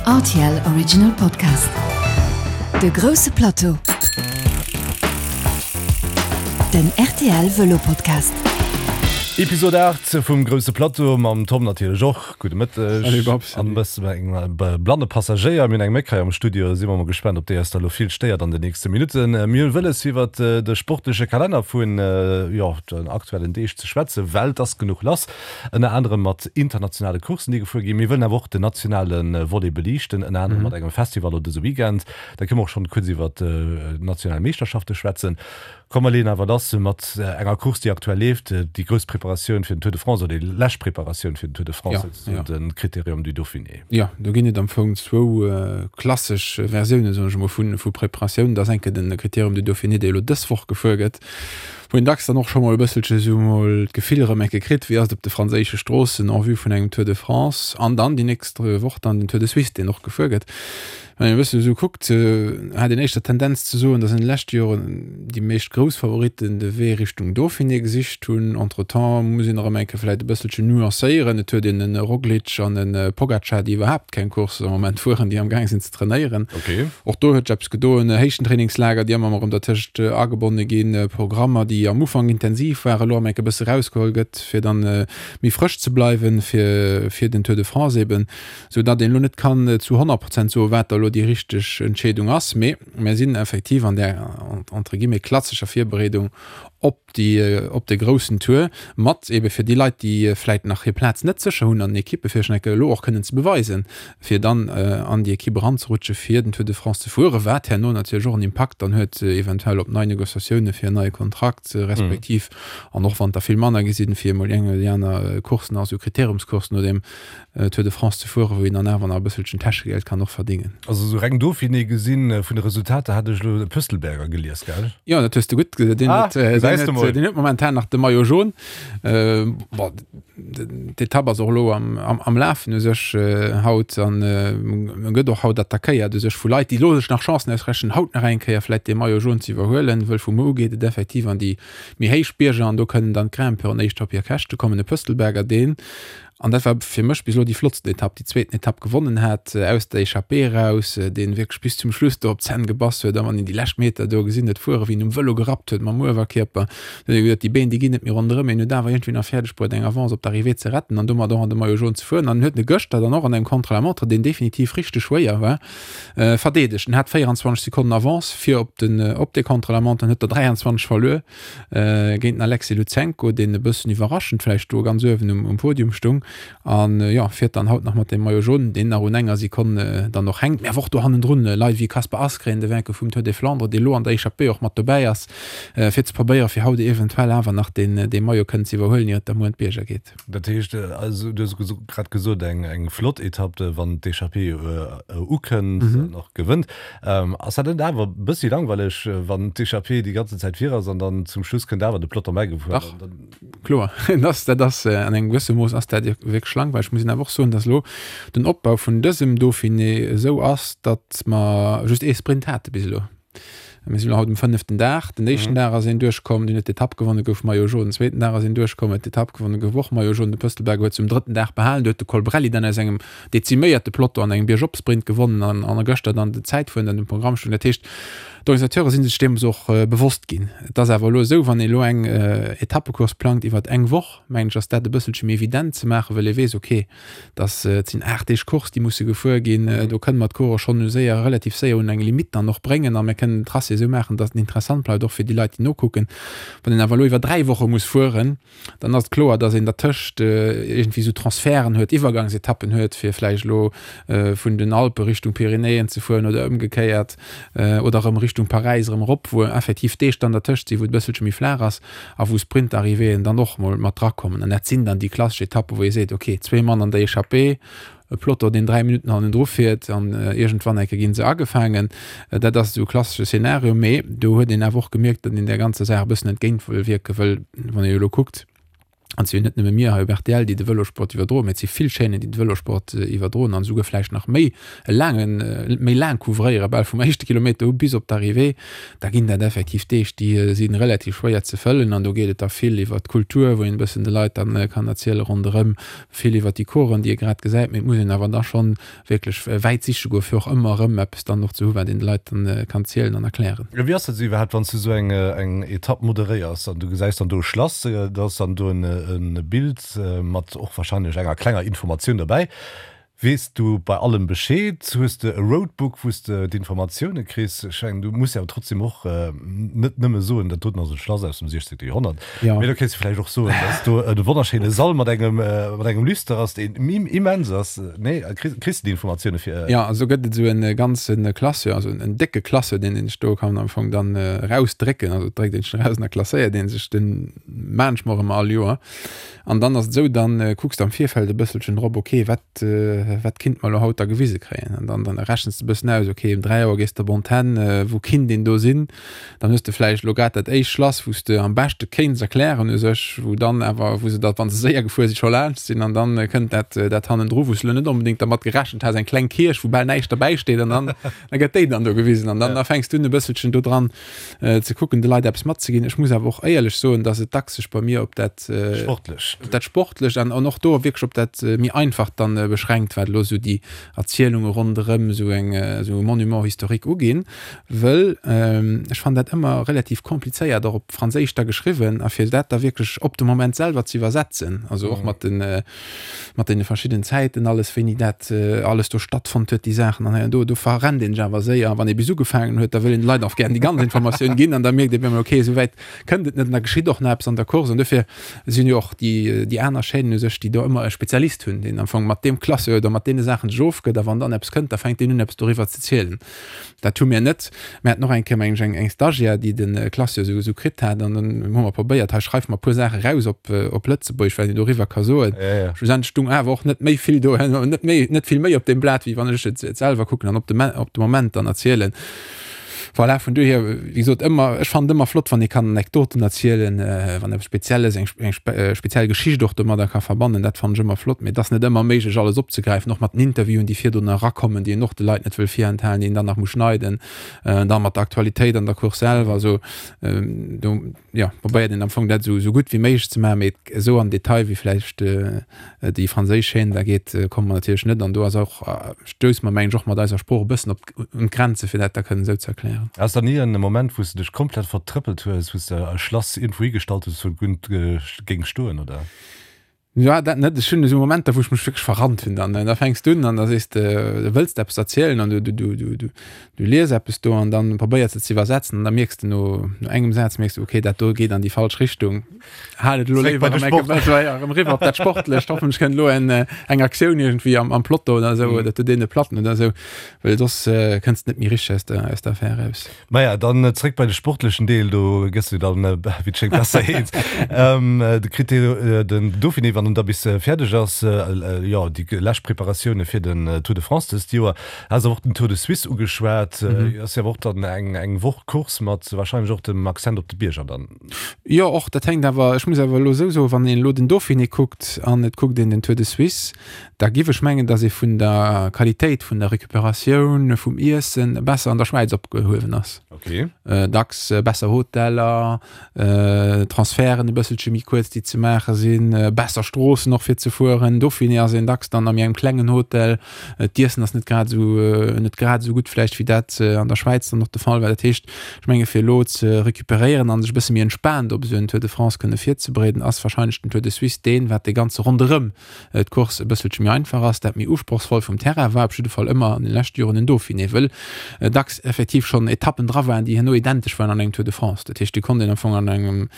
Rtl Original Podcast. De grousse Plateau. Den rtl Vëlo Podcast. Episode 8 vum grousse Plateau mam Tom natierlech och. Gudde Mëtteg. Salut Babs. An e bësse mat engem blanne Passagéier. Mir hunn eng Méck hei am Studio. Si mer mol gespaant, ob déi eis da lo vill stéiert an den nächste Minutten. Mir hu wëlles iwwert de sportleche Kalenner vun, jo, den aktuellen Deeg ze schwätzen, well et ass genuch lass. Ënner anerem mat internationale Courssen, déi gefuer ginn. Mir wëllen awer och den nationale Volet beliichten, ënner anerem mat engem Festival elo dëse Weekend. Da kënne mer och schonn kuerz iwwer d'national Meeschterschafte schwätzen. Komm mer leeën awer lass mat enger Course, déi aktuell leeft, déi grouss Preparatioun fir den Tour de France oder déi lescht Preparatioun fir den Tour de France, souzesoen de Critérium du Dauphiné. Jo, do ginn et am Fong zwou klassesch Versiounen, soen ech emol, vu Preparatioun. Dat ass eng Kéier de Critérium du Dauphiné, dee elo dës Woch gefuer gëtt. Wou een dacks dann och scho mol e bësselche sou mol d'Gefill erëm eng Kéier kritt, wéi ass et op de franséische Stroossen en vue vun engem Tour de France an dann déi nächst Woch dann den Tour de Suisse, deen och gefuer gëtt. Wann een e bësse sou kuckt, hat een éischter d'Tendenz ze soen, datt an de leschte Joren déi meescht grouss Favoritten de Wee Richtung Dauphiné gesicht hunn. Entretemps muss een erëm eng Kéier vläicht e bësselchen nuancéieren, et huet een e Roglic an e Pogacar, déi iwwerhaapt keng Course am Moment fueren, déi amgaang sinn ze trainéieren. Och do huet sech eppes gedoen, Héichtentrainingslager, déi ëmmer erëm dertëscht agebonne ginn, Programmer, déi am Ufank intensiv waren, elo erëm enk e bësse rausgeholl gëtt, fir dann méi frësch ze bleiwen fir fir den Tour de France eben, sou datt een elo net kann zu 100 Prozent soen, wat da elo déi richteg Entscheedung ass. Mee mir sinn effektiv an där entre guillemets klassescher Virbereedung op déi op de groussen Tour mat ebe fir déi Leit, déi vläit nach hir Plaz net sécher hunn an den Ekippe fir sech elo och kënnen ze beweisen, fir dann an déi Ekipp eranzerutsche fir den Tour de France ze fueren, wat herno natierlech och en Impakt dann huet eventuell op nei Negociatioune fir en neie Kontrakt respektiv an och wann et der vill manner gi sinn, fir emol déi eng oder déi aner Course nach, esou Kriteriumscoursen no deem Tour de France ze fueren, wou een dann awer nach e bësselchen Täschegeld kann och verdingen. Also sou reng Dauphiné gesinn, vun de Resultater hat ech elo de Pöstelberger gelies, gell? Jo, dat hues de gutt gesinn. Deen huet, deen huet, deen huet momentan nach de Maillot jaune. Bon, d'Etapp ass och elo am, am, am Lafen u sech haut an e gëtt och haut attackéiert u sech vu Leit, déi elo sech nach Chancen ausrechnen, haut nach eng Kéier vläit dee Maillot jaune ze iwwerhuelen, wëll vu muer u geet et effektiv an déi méi héich Bierger an do kënnen dann d'Grimpeuren éischter op hir Käschte kommen. De Pöstelberger, deen An dat war fir mech bis elo déi flottsten Etapp, déi zweeten Etapp gewonnen hat, aus der Echappée eraus, deen wierklech bis zum Schluss do op d'Zänn gebass huet. A wann een déi lescht Meter do gesinn huet fueren, wéi en um Vëlo gerappt huet mam Uewerkierper, da huet ee geduet, déi Been, déi ginn net méi ronderëm. Mee en huet awer iergendwéi nach fäerdeg bruet, eng Avance op d'Arrivée ze retten an domat och an de Maillot jaune ze fueren. An en huet e gëschter dann och an engem Contre-la-montre, deen definitiv richteg schwéier war, verdeedegt. En hat 24 Sekonnen Avance fir op den, op dee Contre-la-montre an huet der 23 verluer. Géint den Alexei Lutsenko, deen e bëssen iwwerraschend vläicht do ganz uewen um Podium stung. An jo, fiert dann haut nach mat dem Maillot jaune, deen nach un enger Sekonn dann och hänkt. Mee awer och do hannendrun Leit wéi Kasper Asgreen, de Vainqueur vum Tour des Flandres, dee lo an der Echappée och mat dobäi ass, fir ze probéieren, fir haut eventuell awer nach deen Maillot kënnen ze iwwerhuelen, ier et da muer an d'Bierger geet. Dat heescht, also du hues grad gesot, eng flott Etapp, wann d'Echappée ukënnt an och gewënnt. Ass dat net awer e bëssi langweileg, wann d'Echappée déi ganzen Zäit vir ass an dann zum Schluss kënnt awer de Peloton bäigefuer? Dach, kloer. Dat ass an engem gewësse Mooss ass dat wierklech langweileg. Ech muss een awer och soen, datt elo den Opbau vun dësem Dauphiné esou ass, datt mer just ee Sprint hate bis elo. Mir sinn elo haut um fënneften Dag. Den éischten Dag ass een duerchkomm, deen huet d'Etapp gewonnen, gouf Maillot jaune. Den zweeten Dag ass een duerchkomm, huet d'Etapp gewonnen, gouf och Maillot jaune. De Pöstelberger huet se um drëtten Dag behalen. Do huet de Colbrelli dann aus engem deziméierte Peloton an engem Biergop-Sprint gewonnen an an gëschter dann den Zäitfueren dann um Programm stoung. Dat heescht, d'Organisateure si sech deems och bewosst ginn. Et ass awer elo esou, wann ee elo eng Etappecourse plangt iwwert eng Woch, mengen ech, ass dat e bësselche méi evident ze maachen, well ee weess, okay, dass et sinn 8 Deeg Course, déi musse gefuer ginn, do kënne mer d'Coureuren schonn u séier, relativ séier un eng Limitt dann och bréngen a mir kënnen den Tracé esou maachen, dass en interessant bleift, och fir déi Leit, déi nokucken. Wann een awer elo iwwer 3 Woche muss fueren, dann ass et kloer, dass een dertëscht iergendwéi esou Transferten huet, Iwwergangsetappen huet, fir vläicht elo vun den Alpe Richtung Pyrenäen ze fueren oder ëmgekéiert oder erëm Richtung Paräis erëm erop, wou effektiv Deeg dann dertëscht sinn, wou et e bësselche méi flaach ass a wou Sprint-Arrivéeën dann och mol mat drakommen. An dat sinn dann déi klassesch Etappen, wou ee seet, okay, zwee Mann an der Echappée, e Peloton, deen 3 Minutten hannendru fiert an iergendwann eng Kéier gi se agefaangen. Dat ass esou e klassesche Szenario, mee do huet een awer och gemierkt, datt een där ganzer Saach e bëssen entgéint wëll wierken, wëll wann ee elo kuckt. An et si jo net nëmme mir hei op rtl, déi de Vëlosport iwwerdroen, mä et si vill Chaînen, déi de Vëlosport iwwerdroen an esouguer vläicht nach méi e laangen, méi laang couvréieren, bal vum éischte Kilometer u bis op d'Arrivée. Da ginn dat effektiv Deeg, déi si relativ schwéier ze fëllen. An do geet et da vill iwwert d'Kultur, wou een e bëssen de Leit dann kann erziele ronderëm, vill iwwert déi Coursen, déi ee grad gesäit. Mee et muss een awer da schonn wierklech wäit siche goen, fir och ëmmer erëm eppes dann och ze hu wat een de Leit dann kann zielen an erklären. Wéi ass dat esou iwwerhaapt, wann s du esou eng eng Etapp moderéiers an du gesäis dann do e Schlass, da ass dann do en Bild mat och wahrscheinlech enger klenger Informatioun derbäi. Weess du bei allem Bescheed? Hues de e Roadbook, wou s de d'Informatioune kriss? Ech mengen, du muss jo awer trotzdem och net nëmme soen, dat doten ass e Schlass aus dem 16. Joerhonnert. Ja. Mee do kéints du vläicht och soen, dass do e wonnerschéine Sall mat engem, mat engem Lüster ass, deen immens ass. Nee, kriss, kriss du déi Informatioune fir. Ja, also gëtt et esou e ganze Classeur, also en décke Classeur, deen een sech do kann am Fong dann erausdrécken. Also et dréckt een sech eraus an da klasséiert ee sech den maan ech mer och ëmmer all Joer. An dann ass et esou, dann kucks de am Virfeld e bësselchen drop, okay, wat, wat kinnt mer elo haut da gewise kréien? An dann, dann rechens de e bëssen aus, okay, um 3 Auer gees de op Antenn, wou kinnt een do sinn? Dann hues de vläicht elo grad dat éischt Schlass, wou s de am beschte kéints erklären u sech, wou dann awer, wou se da, wa se séier gefuer sinn, scho laanscht sinn an dann kënnt dat, dat hannendru, wou s de elo net onbedéngt dermat gerechent has, eng kleng Kierch, wou bal näischt derbäi steet an dann, da gëtt déi dann do gewisen an dann da fänks du un e bësselchen do dran ze kucken, de Leit eppes matzeginn. Ech muss awer och éierlech soen, dass et dacks sech bei mir op dat Sportlecht, op dat Sportlecht an an och do wierklech op dat méi Einfacht dann beschränkt, wat elo esou déi Erzielunge ronderëm esou eng, esou e Monument historique uginn. Wëll ech fannen dat ëmmer relativ komplizéiert, och op Franséisch da geschriwwen, a fir dat da wierklech op de Moment selwer ze iwwersetzen, also och mat den, mat deene verschidden Zäiten alles, wéini dat alles do stattfonnt huet, déi Saachen an hei an do, do verrennt een sech awer séier. A wann ee bis ugefaangen huet, da wëll een de Leit och gären déi ganz Informatioun ginn an da mierkt ee op eemol, okay, esou wäit kënnt et net an da geschitt och nach eppes an der Course. An dofir sinn jo och déi, déi aner Chaînen u sech, déi do ëmmer e Spezialist hunn, deen am Fong mat deem Classeur oder mat deene Saachen sech ofgëtt a wann dann eppes kënnt, da fänkt deen un eppes doriwwer ze zielen. Dat hu mir net. Mir haten och eng Kéier, mengen ech, eng, eng Stagiaire, déi de Classeur esou, esou kritt hat. An dann hu mer probéiert, hei schreif mer e puer Saache raus op, op Lëtzebuergesch, wat een doriwwer ka soen. Ja, ja. Schlussendlech stung awer och net méi vill do, net méi, net vill méi op deem Blat, wéi wann ech et, et selwer kucken an op de, op de Moment dann erzielen. Voilà, vun dohier, wéi gesot, ëmmer, ech fannen et ëmmer flott, wann ee kann Anekdoten erzielen, wann eppes Spezielles, eng, eng speziell Geschicht och domadder ka verbannen, dat fannen ech ëmmer flott. Mee et ass net ëmmer méiglech, alles opzegräifen, och mat den Interviewen, déi virdrun erakommen, déi een och de Leit net wëll virenthalen, déi een dann nach muss schneiden, dann mat der Aktualitéit an der Course selwer. Also do, jo, probéiert een am Fong dat esou, esou gutt wéi méiglech ze maachen, mee esou am Detail wéi vläicht déi franséisch Chaîne da geet, komme mer natierlech net. An do ass och, stousse mer, mengen ech, och mat eiser Sprooch e bëssen op un d'Grenze fir dat da kënnen esou ze erklären. Ass da ni en Moment wou s de dech komplett vertrëppelt hues, wou s de e Schlass iergendwou higestallt hues, wou et gutt géing stoen, oder? Jo, dat net. Ech hunn esou Momenter, wou ech mech wierklech verrannt hunn dann. Da fänks du un an da sees de, du wëlls eppes erzielen an du, du, du, du, du, du lies eppes do an dann probéiers de ze iwwersetzen an da mierks de no, no engem Saz mierks du, okay, dat do geet an déi falsch Richtung. Hal et elo Zréck bei léiwer de erëm eng Sport. Kéier erëm eriwwer op dat Sportlecht. Hoffentlech kënnt elo en, eng Aktioun iergendwéi am, am Plotto oder esou oder zu deene Platten oder esou, well soss kënns de net méi richteg aus der, aus der Affär eraus. Maja, dann zréck bei de sportlechen Deel, do gëss du dann, wéi et schéngt, besser eens. De Critérium, den Dauphiné, wann en da bis fäerdeg ass, jo, déi lescht Preparatioune fir den Tour de France dëst Joer. Has awer och den Tour de Suisse ugeschwat, ass jo awer och dann eng eng Woch Course mat warscheinlech och dem Accent op de Bierger dann. Jo, och dat hänkt awer, ech muss awer elo esou soen, wann een elo den Dauphiné kuckt an et kuckt een den Tour de Suisse, Da giff ech mengen, dass ee vun der Qualitéit vun der Recuperatioun, vum Iessen besser an der Schwäiz opgehuewen ass. Okay. Dacks besser Hoteller, Transferten e bësselche méi kuerz, déi ze maache sinn, besser Stroossen och fir ze fueren. Dauphiné ass een dacks dann a méi engem klengen Hotel. D'Iessen ass net grad esou, net grad esou gutt vläicht wéi dat an der Schwäiz dann och de Fall war. Dat heescht, ech menge fir elo ze recuperéieren an sech e bësse méi entspaant op esou en Tour de France kënne virzebereeden, ass warscheinlech den Tour de Suisse deen, wat dee ganze ronderëm d'Course e bësselche méi einfach ass, dat méi usprochsvoll vum Terrain war op jidde Fall ëmmer an den leschte Joren den Dauphiné, wëll dacks effektiv schonn Etappen dra waren, déi herno identesch waren an engem Tour de France. Dat heescht, déi konnt een am Fong an engem,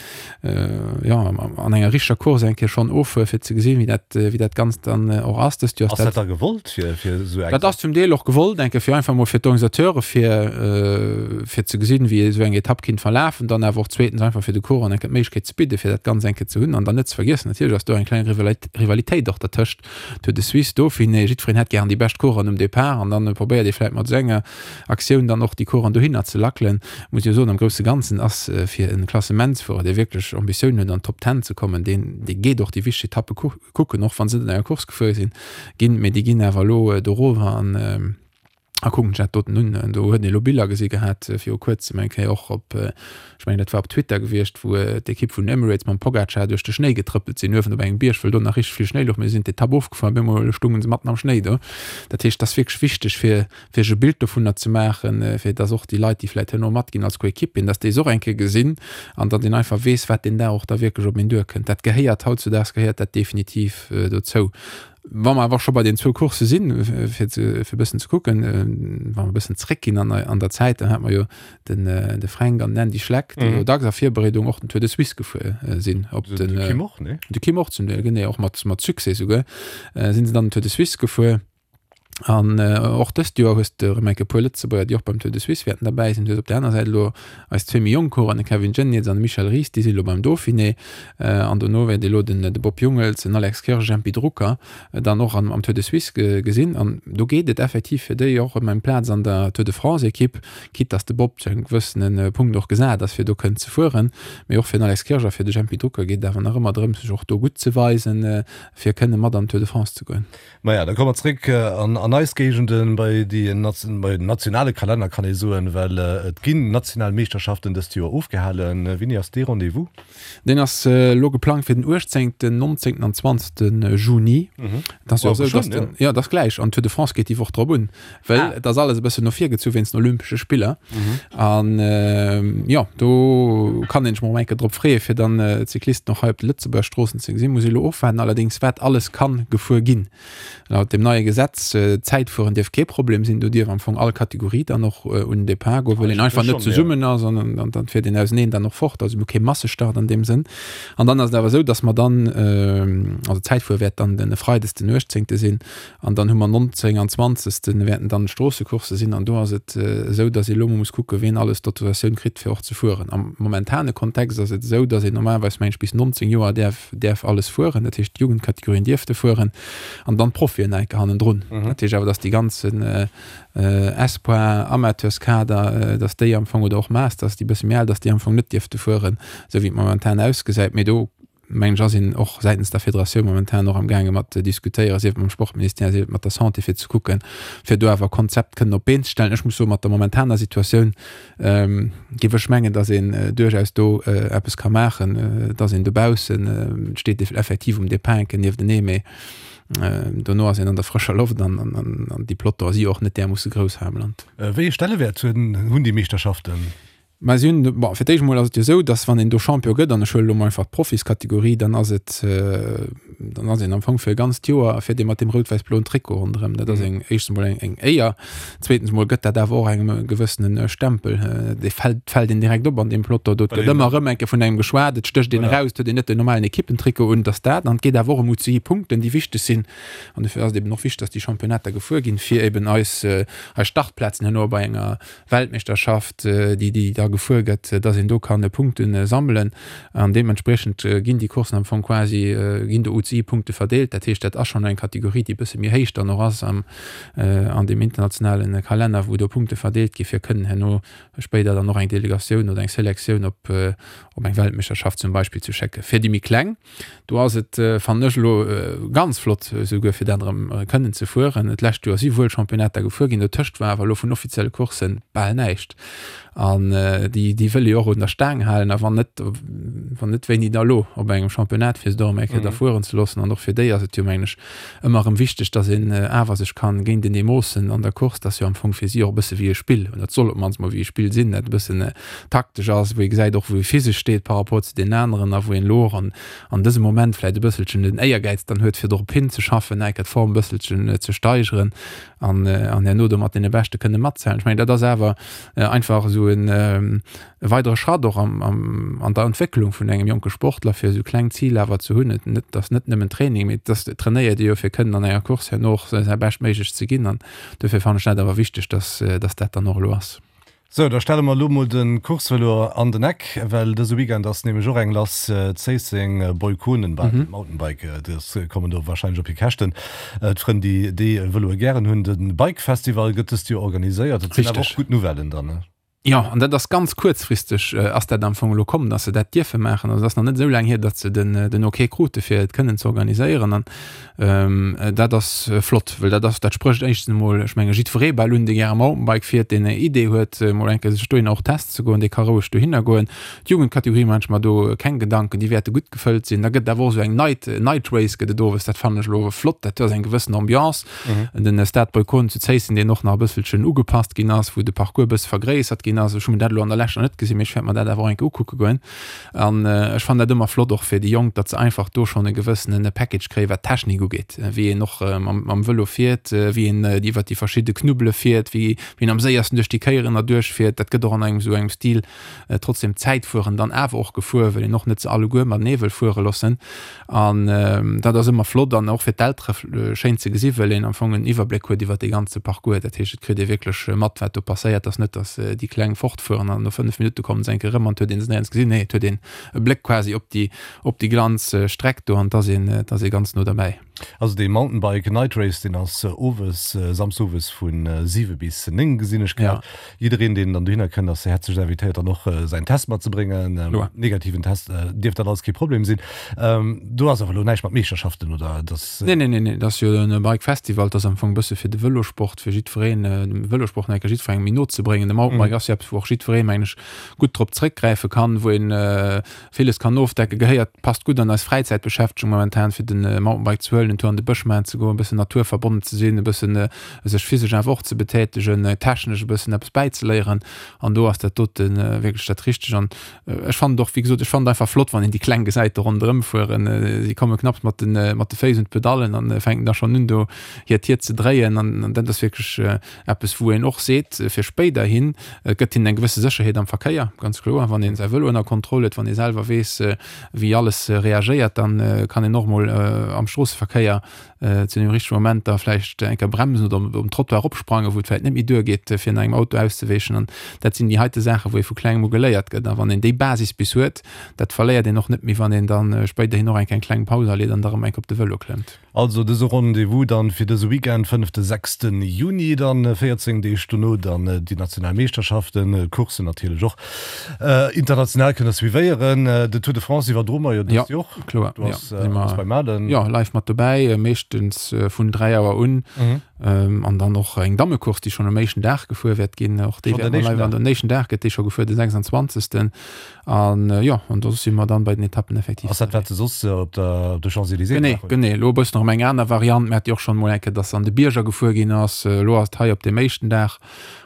jo, an enger richteger Course eng Kéier schonn offuere. fueren, fir ze gesinn, wéi dat, wéi dat Ganzt dann och ass. Dëst Joer ass dat. Ass dat da gewollt, fir, fir esou eng. Dat ass zum Deel och gewollt, enke fir einfach mol fir d'Organisateure fir, fir ze gesinn, wéi esou eng Etapp kinnt verlafen, dann awer och zweetens einfach fir de Coureuren enke d'Méiglechkeet ze bidden, fir dat Ganzt enke ze hunn. An dann net ze vergiessen, natierlech ass do eng kleng Rivalitéit och dertëscht Tour de Suisse, Dauphiné, jiddwereen hätt gären déi bescht Coureuren um Depart an dann probéiert ee vläicht mat esou enger Aktioun dann och déi Coureuren dohinner ze lackelen. Muss jo soen, am grousse Ganzen ass fir e Klassementsfuerer, dee wierklech Ambitiounen huet an d'Top Ten ze kommen, deen dee geet och déi wichteg Etappe kucken, och wa se net an enger Course gefuer sinn ginn, mee déi ginn awer elo dorower an a kucken sech dat doten un. Do huet een elo Biller gesi gehat viru kuerzem eng Kéier och op, ech mengen dat war op Twitter gewiescht, wou d'Ekipp vun Emirates mam Pogacar duerch de Schnéi getrëppelt sinn, uewen op engem Bierg, wëll do nach richteg vill Schnéi louch, mee se sinn d'Etapp ofgefuer an op eemol stounge se matten am Schnéi do. Dat heescht, et ass wierklech wichteg fir fir sech e Bild dovunner ze maachen, fir dass och déi Leit, déi vläicht herno matginn als Coéquipieren, dass déi se och eng Kéier gesinn an datt een einfach weess, wat deen Dag och da wierklech op een duerkënnt. Dat gehéiert hautzudaags gehéiert dat definitiv dozou. Wa mer awer scho bei den zwou Coursse sinn, fir ze, fir e bëssen ze kucken, wa mer e bëssen zréckginn an, an der Zäit, dann hat mer jo den, de Fränk an den Andy Schleck, déi jo dacks a Virbereedung och den Tour de Suisse gefuer sinn. Op den, de Kim och, nee? De Kim och zum Deel, genee, och mat, mat Succès souguer, sinn se dann den Tour de Suisse gefuer. An och dëst Joer hues de erëm eng Kéier e puer Lëtzebuerger, déi och beim Tour de Suisse wäerten derbäi sinn. Du hues op där aner Säit elo eis zwee méi jonk Coureuren, de Kevin Geniets an de Michel Ries, déi si elo beim Dauphiné. An dono wäert ee elo den de Bob Jungels, den Alex Kirsch, Jempy Drucker dann och am Tour de Suisse gesinn. An do geet et effektiv fir déi och ëm eng Plaz an der Tour de France-Ekipp, quitte dass de Bob zu engem gewëssene Punkt och gesat ass, fir do kënnen ze fueren. Mee och fir den Alex Kirsch a fir de Jempy Drucker geet et awer nach ëmmer drëms, sech och do gutt ze weisen, fir kënne mat an d'Tour de France ze goen. Maja, da komme mer zréck an eis Géigenden, bei déi, bei den nationale Kalenner kann ee soen, well et ginn national Meeschterschaften dëst Joer ofgehalen. Wéini ass dee Rendez-vous? Deen ass elo geplangt fir den 18., 19. an 20. Juni. Et ass jo esou, dass den, jo, et ass gläich, an d'Tour de France geet déi Woch drop un, well et ass alles e bëssen no vir gezu wéinst den Olympesche Spiller. An jo, do kann een sech mol eng Kéier drop freeë fir dann d'Cyclisten och hei op de Lëtzebuerger Stroossen ze gesinn. Muss ee elo ofwaarden allerdéngs wat alles kann gefuer ginn. Laut dem neie Gesetz, Zäitfueren dierf kee Problem sinn, do dierf am Fong all Kategorie dann och un den Depart goen, well een einfach net zesummen ass an dann fiert een auseneen dann och fort. Also mir hu kee Massestart an deem Sënn. An dann ass et awer esou, datt mer dann, also d'Zäitfuere wäert dann den e Freides den 18. sinn, An dann hu mer 19 an 20. wäerten dann d'Stroossecoursse sinn. An do ass et esou, datt ee elo mol muss kucken, wien alles d'Autorisatioun kritt, fir och ze fueren. Am momentane Kontext ass et esou, datt een normalerweis, meng ech, bis 19 Joer däerf, däerf alles fueren. Dat heescht, d'Jugendkategorien dierfte fueren an dann d'Profien nach eng Kéier hannendrun. Dat heescht awer, datt déi ganzen Espoir, Amateurskader, datt déi am Fong, oder och Masters, déi e bësse méi al, datt déi am Fong net dierfte fueren, esou wéi et momentan ausgesäit. Mee do mengen ech, ass een och säitens der Federatioun momentan och am gaange mat ze diskutéieren, sief et mam Sportministère, sief et mat der Santé, fir ze kucken, fir do awer e Konzept kënnen op d'Been ze stellen. Ech muss soen, mat der momentaner Situatioun géif ech mengen, datt een duerchaus do eppes ka maachen, datt een dobaussen, et steet effektiv um Depart enke nieftenee, mee dono ass een an der frëscher Loft an déi Plotter si jo och net därmoosse grouss hei am Land. Wéi ee Stellewäert hunn déi Meeschterschaften? Mä si hunn, bon, fir d'éischt emol ass et jo esou, datt wann een do Champion gëtt, an ech huelen elo mol einfach d'Profiskategorie, dann ass et, dann ass een am Fong fir e ganzt Joer fiert ee mat deem rout-wäiss-bloen Trikot ronderëm. Dat ass eng, éischtens emol eng, eng Éier, zweetens emol gëtt dat awer och engem e gewëssene Stempel, dee fält, fält een direkt op an deem Peloton do. Et gëtt ëmmer erëm eng Kéier vun engem geschwat, et stécht een eraus, et huet een net den normalen Ekippentrikot un, et ass dat. An et geet awer och ëm UCI-Punkten, déi wichteg sinn. An dofir ass et eben och wichteg, datt déi Championnater gefuer ginn, fir eben eis, eis Startplazen herno bei enger Weltmeeschterschaft, déi déi da gefuer gëtt, dass een do kann Punkte sammelen an deementspriechend ginn déi Courssen am Fong quasi, ginn do UCI-Punkte verdeelt. Dat heescht, dat ass schonn eng Kategorie, déi e bësse méi héich dann och ass am an deem internationale Kalenner, wou do Punkte verdeelt gi fir kënnen herno spéider dann och eng Delegatioun oder eng Selektioun op op eng Weltmeeschterschaft zum Beispill ze schécken. Fir déi méi kleng Do ass et, fannen ech elo, ganz flott esouguer fir dat erëm kënnen ze fueren. D'lescht Joer si wuel Championnater gefuer ginn, dotëscht war awer elo vun offizielle Coursse bal näischt. An déi, déi wëll ee jo och un der Staang halen. A wann net, wann net, wéini da elo op engem Championnat, fir se do erëm eng Kéier da fueren ze loossen. An och fir déi ass et jo, mengen ech, ëmmer erëm wichteg, datt een awer sech kann géintenee moossen an der Course. Dat ass jo am Fong fir si och e bësse wéi e Spill, oder et soll op d'mannst mol wéi e Spill sinn, dat e bëssen taktesch ass, wou ee gesäit och wou ee physesch steet par rapport zu deenen aneren a wou een elo och an an dësem Moment vläicht e bësselchen den Éiergäiz dann huet fir dorop hinzeschaffen, enker d'Form e bësselchen ze steigeren an an herno do mat deene Beschte kënne matzählen. Ech mengen dat ass awer einfach esou en. e weidere Schratt och am, am, an der Entwécklung vun engem jonke Sportler, fir esou kleng Ziler awer ze hunn. Et net, ass net nëmmen Training, mee et ass, et trainéiert ee jo fir kënnen an enger Course herno och säi Beschtméiglecht ze ginn an dofir fannen ech dat awer wichteg, dass, dass dat dann och elo ass. Sou, da stelle mer elo mol de Coursevëlo an den Eck, well dëse Weekend ass nämlech och eng lass, Zéisseng, Boykonen, Mountainbike, dës kommen do warscheinlech op hir Käschten, d'Frënn déi déi Vëloe gären hunn. De Bike Festival gëtt dëst Joer organiséiert, dat sinn awer och gutt Nouvellen dann, ne? Jo, an dat ass ganz kuerzfristeg ass dat am Fong elo komm, datt se dat dierfe maachen. Also et ass nach net esou laang hier, datt se den, den Ok krute fir et kënnen ze organiséieren. An dat ass flott, well dat ass, dat sprécht éischtens emol, ech menge jiddweree bal un, dee gäre Mountainbike fiert, deen eng Idee huet, emol eng Kéier sech dohinner och testen ze goen, dee ka roueg dohinner goen. D'Jugendkategorie maachen ech mer do keng Gedanken, déi wäerte gutt gefëllt sinn. Da gëtt et awer och esou eng Night, Night Race gëtt et owes, dat fannen ech elo flott, dat ass eng gewëssen Ambiance. Den Stade Boykonen zu Zéisseng, deen och nach e bësselchen ugepasst ginn ass, wou de Parcours e bësse vergréissert ginn ass. Ech hu mir dat elo an der Lescht nach net gesinn, mee ech wäert mer dat awer och eng Kéier ukucke goen. An ech fannen dat ëmmer flott och fir déi Jonk, datt se einfach do schonn e gewëssene Package kréien, wat d'Technik ugeet, wéi een och mam Vëlo fiert, wéi een iwwert déi verschidde Knubbele fiert, wéi een am séiersten duerch déi Kéieren erduerch fiert. Dat gëtt och an engem esou engem Stil trotzdem d'Zäitfueren dann awer och gefuer, well een och net se alleguer matenee wëll fuere loossen. An dat ass ëmmer flott an och fir d'Eltere schéin ze gesi well een am Fong en Iwwerbléck huet iwwer dee ganze Parcours. Dat heescht, et kritt ee wierklech mat, wat do passéiert. Ass net, datt déi Kleng fortfueren an no 5 Minutte kommen se eng Kéier erëm an et huet een se néierens gesinn. Nee, et huet een e Bléck quasi op déi, op déi ganz Streck do an et ass een, et ass ee ganz no derbäi. Also dee Mountainbike Night Race, deen ass owes, Samsdes owes vu 7 bis 9, gesinn ech grad. Jiddereen, deen dann dohinner kënnt, ass häerzlech invitéiert, dann och säin Test matzebréngen. Negativen Test dierft dat alles kee Problem sinn. Do ass awer elo näischt mat Meeschterschaften, oder? Dat. Nee, nee, nee, nee, dat ass jo e Bike Festival, dat ass am Fong e bësse fir de Vëlosport, fir jiddwereen, de Vëlosport nach eng Kéier jiddwerengem méi no ze bréngen. De Mountainbike ass jo eppes, wou och jiddweree, mengen ech, gutt drop zréckgräife kann, wou een Villes kann ofdecken, gehéiert, passt gutt an eis Fräizäitbeschäftegung momentan, fir den Mountainbike ze huelen, en Tour an de Bësch maachen ze goen, e bëssen naturverbonnen ze sinn, e bëssen sech physesch awer och ze betätegen, technesch e bëssen eppes bäizeléieren an do ass dat dote wierklech dat Richteg. An ech fannen et och, wéi gesot, ech fannen et einfach flott, wann een déi Kleng gesäit do ronderëm fueren. Si komme knapps mat de mat de Féiss un d'Pedallen an fänken da schonn un do hiert Tier ze dréien an dat ass wierklech Eppes wou een och seet, fir spéiderhin, et gëtt hinnen eng gewësse Sécherheet am Verkéier, ganz kloer, wann ee säi Vëlo ënner Kontroll huet, wann ee selwer weess, wéi alles reagéiert, da kann een och mol am Stroosseverkéier zu deem richtege Moment da vläicht eng Kéier bremsen oder um Trottoir eropsprangen, wou et vläicht net méi duergeet, fir no engem Auto auszeweechen. An dat sinn déi heite Saachen, wou ee vu klengem u geléiert gëtt. A wann een déi Basis bis huet, dat verléiert een och net méi, wann een da spéiderhin och eng Kéier eng kleng Paus aleet an da rëm eng Kéier op de Vëlo klëmmt. Also dëse Rendez-vous dann fir dëse Weekend, fënnefte, sechsten Juni, dann 14 Deeg dono dann déi national Meeschterschaften, Courssen natierlech och international kënnt der suivéieren. Den Tour de France iwwerdroe mer jo dëst Joer och. Kloer, jo, si mer beim Aden. Jo, live mat dobäi, meeschtens vun 3 Auer un. An dann och eng Dammecourse, déi schonn um éischten Dag gefuer wäert ginn. Och déi wäerte mer live an den éischten Dag gëtt déi scho gefuer, de 26. An jo, an do si mer dann bei den Etappen effektiv. Ass dat wat se soss op der op de Champs-Élysées Genee, gemaach hunn? Genee, elo e bëssen erëm eng aner Variant. Mir hate jo och schonn emol eng Kéier, dass se an de Bierger gefuer ginn ass. Elo ass et hei op deem éischten Dag.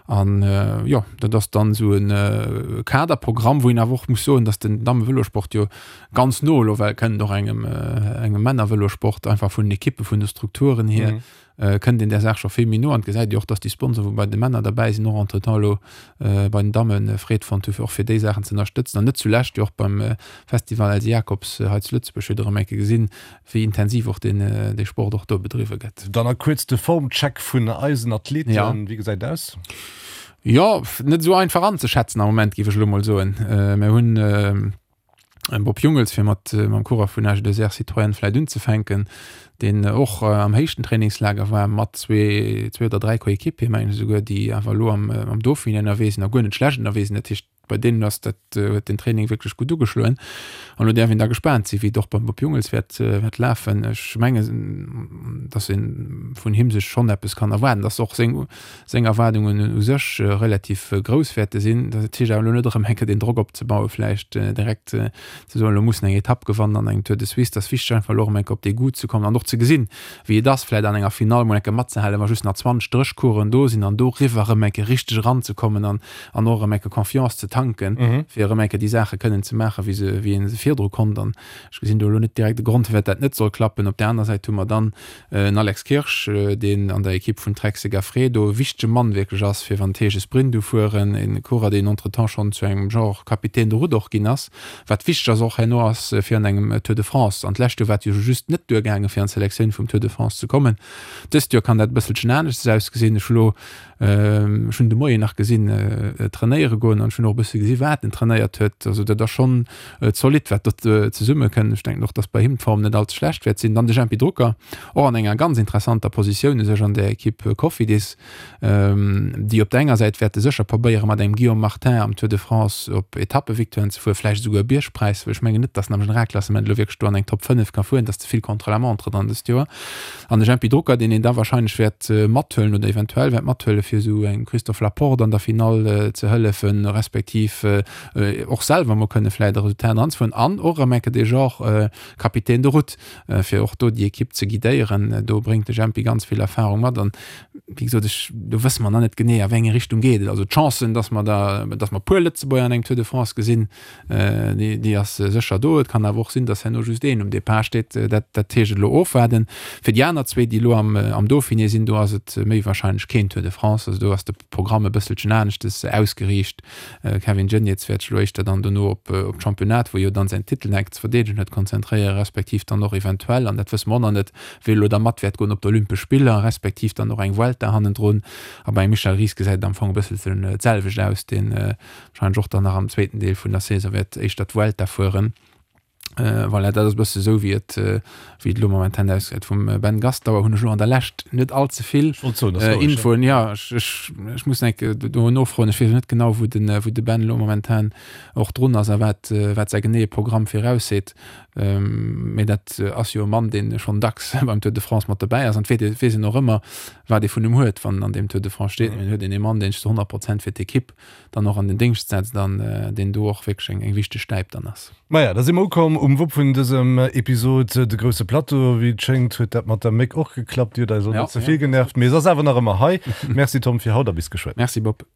An jo, dat ass dann esou e Kaderprogramm, wou een awer och muss soen, dass den Dammevëlosport jo ganz no elo well kënnt och engem engem Männervëlosport, einfach vun den Ekippen, vun de Strukturen hier. Kënnt een där Saach scho vill méi no an et gesäit ee och, dass déi Sponsoren, wou bei de Männer derbäi sinn, och entretemps elo bei den Damme Freed fonnt hu fir och fir déi Saachen ze ënnerstëtzen an net zulescht jo och beim Festival Elsy Jacobs hei zu Lëtzebuerg huet erëm eng Kéier gesinn, wéi intensiv och deen dee Sport och do bedriwwe gëtt. Dann a kuerz de Formcheck vun eisen Athleten, wéi gesäit et aus? Jo, net esou einfach anzeschätzen am Moment, géif ech elo mol soen. Mir hunn. Bob Jungels, fir mat mam Coureur vun AG2R Citroën vläit unzefänken, deen och am héichten Trainingslager war mat zwee, zwee oder dräi Coéquipier, mengen ech esouguer, déi awer elo am, am Dauphiné ënnerwee sinn a guer net schlecht ënnerwee sinn. Dat heescht, bei deenen ass dat, huet den Training wierklech gutt ugeschloen. An elo däerf een da gespaant sinn, wéi et och beim Bob Jungels wäert, wäert lafen. Ech mengen, datt ee vun him sech schonn eppes kann erwaarden, datt och seng, seng Erwaardungen u sech relativ grouss wäerte sinn. Dat heescht awer elo net erëm eng Kéier den Drock opzebauen, vläicht direkt ze soen, elo muss en eng Etapp gewannen an engem Tour de Suisse. Dat ass wichteg einfach elo erëm eng Kéier op dee Goût ze kommen an och ze gesinn, wéi et ass, vläicht an enger Finall mol eng Kéier matzehalen, wa just nach 20 Dréchcoureuren do sinn an doriwwer erëm eng Kéier richteg eranzekommen an an och erëm eng Kéier Confiance ze tanken. tanken, fir erëm eng Kéier déi Saache kënnen ze maachen, wéi se, wéi ee se virdru konnt. An ech gesinn do elo net direkt e Grond, firwat dat net soll klappen. Op där aner Säit hu mer dann en Alex Kirsch, deen an der Ekipp vun Trek Segafredo e wichtege Mann wierklech ass, fir wann et heescht e Sprint ufueren, e Coureur, deen entretemps schonn zu engem Genre Capitaine de route och ginn ass, wat wichteg ass och herno ass fir an engem Tour de France. An d'lescht Joer war et jo just net duergaangen, fir an d'Selektioun vum Tour de France ze kommen. Dëst Joer kann dat e bësselchen aneschters ausgesinn. Ech hu lo Ech hunn de Moien nach gesinn trainéiere goen an ech hunn och e bësse gesi wat en trainéiert huet. Also dat ass schonn zolidd wat do zesumme kënnt. Ech denken och, datt bei him d'Form net all ze schlecht wäert sinn. Dann de Jempy Drucker, och an enger ganz interessanter Positioun u sech an der Ekipp Cofidis, déi op der enger Säit wäerte sécher probéiere mat engem Guillaume Martin am Tour de France op Etappevictoiren ze fueren, vläicht esouguer e Biergpräis, well ech mengen net, datt en am Generalklassement elo wierklech do an eng Top 5 ka fueren, dat ass ze vill Contre-la-montre dann dëst Joer. An de Jempy Drucker, deen een da wahrscheinlech wäert mathuelen oder eventuell wäert mathuelen, fir esou engem Christophe Laporte an der Finall ze hëllefen, respektiv och selwer emol kënne vläicht e Resultat eranzefueren. An och erëm enke de Genre Capitaine de route, fir och do déi Ekipp ze guidéieren. Do bréngt de Jempy ganz vill Erfahrung mat. An wéi gesot, ech, do wësse mer nach net genee, a wéi eng Richtung geet et. Also d'Chancen, dass mer da, dass mer e puer Lëtzebuerger an engem Tour de France gesinn, Déi ass sécher do. Et kann awer och sinn, datt herno just een um Depart steet. Dat dat heescht elo ofwaarden. Fir déi aner zwee, déi elo am am Dauphiné sinn, do ass et méi warscheinlech keen Tour de France. Also do ass de Programm e bësselchen aneschtes ausgeriicht. Kevin Geniets wäert sech elo éischter dann dono op op d'Championnat, wou e jo dann säin Titel enk ze verdeedegen huet, konzentréieren, respektiv dann och eventuell, an dat wësse mer och nach net, wéi elo da mat wäert goen op d'Olympesch Spiller, respektiv dann och eng Vuelta hannendrun. A beim Michel Ries gesäit et am Fong e bësselchen d'selwecht aus, deen Wahrscheinlech och dann nach am zweeten Deel vun der Saison wäert éischter d'Vuelta fueren. Äh, voilà, dat ass e bësse sou wéi et äh, wéi et elo momentan ausgesäit. Vum äh, Ben Gastauer hunn ech elo an der Lescht net all ze vill Ech wollt soen, das äh, logesch, ja. Infoen. Ja, ech, ech, ech muss enk äh, do nofroen. Ech weess net genau, wou den, äh, wou de Ben elo momentan och drun ass a wat, äh, wat säi geneeë Programm virausseet. Ähm, mee dat äh, ass jo e Mann, deen schonn dacks beim Tour de France mat dobäi ass an et weess weess een och ëmmer, wat ee vun em huet, wann en an deem Tour de France steet. Mee en huet een ee Mann, deen sech zu 100 Prozent fir d'Ekipp dann och an den Déngscht setzt an deen do och wierklech eng wichteg Stäip dann ass. Maja, da si mer ukomm um Wupp vun dësem Episod, de grousse Plateau. Wéi et schéngt, huet dat mat der Méck och geklappt. Déi huet eis och net ze vill genervt, mee se ass awer nach ëmmer hei. Merci Tom fir haut a bis geschwënn. Merci Bob.